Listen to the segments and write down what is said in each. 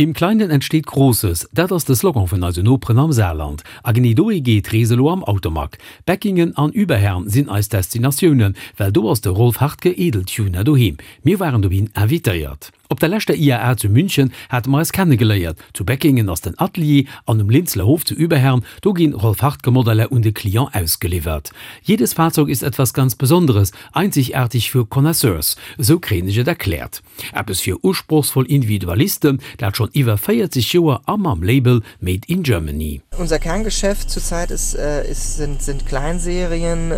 Im Kleinen entsteht Großes, dat ass de Slogan vun eisen Noperen am Saarland. A genee dohi geet d'Rees elo am Automag. Beckingen an Überherrn sinn eis Destinatiounen, well do ass de Rolf Hartke Edeltuner doheem. Mir waren dohin invitéiert. Op der leschter IAA zu München hate mer eis kennegeléiert. Zu Beckingen ass den Atelier an um Linzler Hof zu Überherrn, do ginn Rolf Hartke Modeller un de Client ausgeliwwert. Jedes Fahrzeug ist etwas ganz Besonderes, einzigartig für Connaisseurs, esou kréien ech et erkläert. Eppes fir usprochsvoll Individualisten, dat schonn iwwer 40 Joer a mam Label Made in Germany. Unser Kerngeschäft zurzeit ist, ist sind, sind Kleinserien,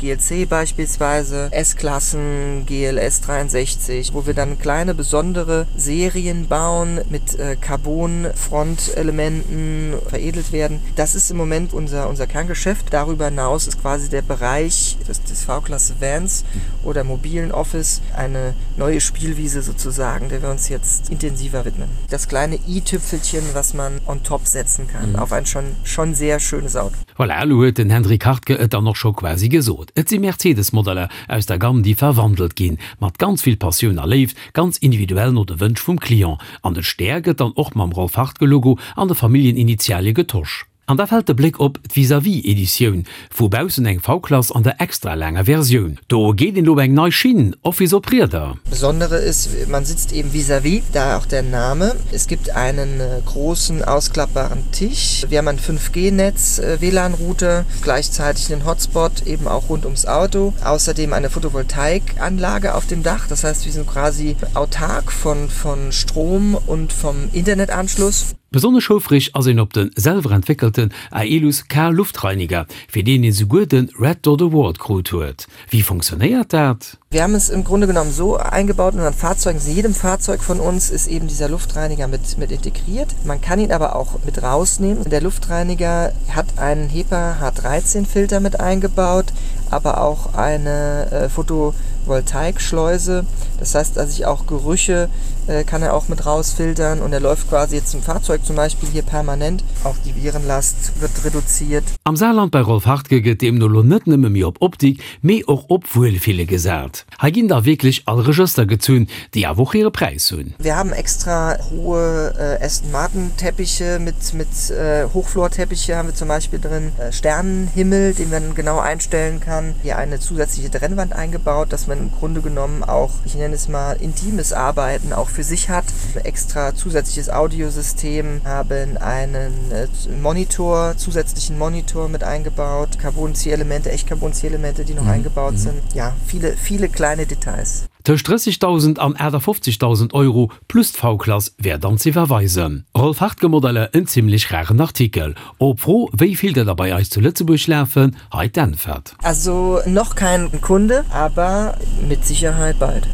GLC beispielsweise, S-Klassen, GLS 63, wo wir dann kleine besondere Serien bauen mit Carbon-Frontelementen veredelt werden. Das ist im Moment unser, unser Kerngeschäft. Darüber hinaus ist quasi der Bereich des, des V-Klasse Vans oder mobilen Office eine neue Spielwiese sozusagen, der wir uns jetzt intensiver widmen. Das kleine i-Tüpfelchen, was man on top setzen kann mhm. auf ein schon, schon sehr schönes Auto. Voilà, elo huet den Hendrik Hartke et dann och scho quasi gesot. Et si Mercedes-Modeller aus der Gamm, déi verwandelt ginn, mat ganz vill Passioun a Léift, ganz individuell no de Wënsch vum Client. An de Stär gëtt dann och mam Rolf Hartke-Logo an de Familljeninitialie getosch. An da fält de Bléck op d'Vis-à-vis-Editioun, vu baussen eng V-Klass an der extra laanger Versioun. Do geet een elo op eng nei Schinn, Office op Rieder. Besondere ist, man sitzt eben vis-à-vis, daher auch der Name. Es gibt einen großen ausklappbaren Tisch. Wir haben ein 5G-Netz, WLAN-Router, gleichzeitig einen Hotspot eben auch rund ums Auto. Außerdem eine Photovoltaikanlage auf dem Dach. Das heißt, wir sind quasi autark von, von Strom und vom Internetanschluss. Besonnesch houfreg ass een op de selwer entwéckelten Aelus K Luftreiniger, fir deen een souguer de Red Dot Award krut huet. Wéi funktionéiert dat? Wir haben es im Grunde genommen so eingebaut in unseren Fahrzeugen, in jedem Fahrzeug von uns ist eben dieser Luftreiniger mit, mit integriert. Man kann ihn aber auch mit rausnehmen. Der Luftreiniger hat einen HEPA H13 Filter mit eingebaut, aber auch eine äh, Photovoltaikschleuse. Das heißt, dass ich auch Gerüche äh, kann er auch mit rausfiltern und er läuft quasi jetzt im Fahrzeug zum Beispiel hier permanent. Auch die Virenlast wird reduziert. Am Saarland bei Rolf Hartke gëtt deemno lo net nëmme méi op Optik, mee och op Wuelfille gesat. Hei ginn da wierklech all Regëster gezunn, déi awer och hire Präis hunn. Wir haben extra hohe Aston Martin Teppiche mit mit Hochflorteppiche haben wir zum Beispiel drin, Sternenhimmel, den man genau einstellen kann, hier eine zusätzliche Trennwand eingebaut, dass man im Grunde genommen auch, ich nenne es mal intimes Arbeiten auch für sich hat, extra zusätzliches Audiosystem, haben einen Monitor, zusätzlichen Monitor mit eingebaut, Carbon-Zierelemente, echt Carbon-Zierelemente, die noch mhm. eingebaut mhm. sind. Ja, viele, viele kleine Details. Tëscht 30.000 an 58.000 Euro plus d'V-Klass wär dann z'iwwerweisen. Rolf Hartke Modeller, en zimmlech raren Artikel. Op d'Fro, wéi vill der der bei eis zu Lëtzebuerg lafen, hei d'Äntwert. Also noch kein Kunde, aber mit Sicherheit bald.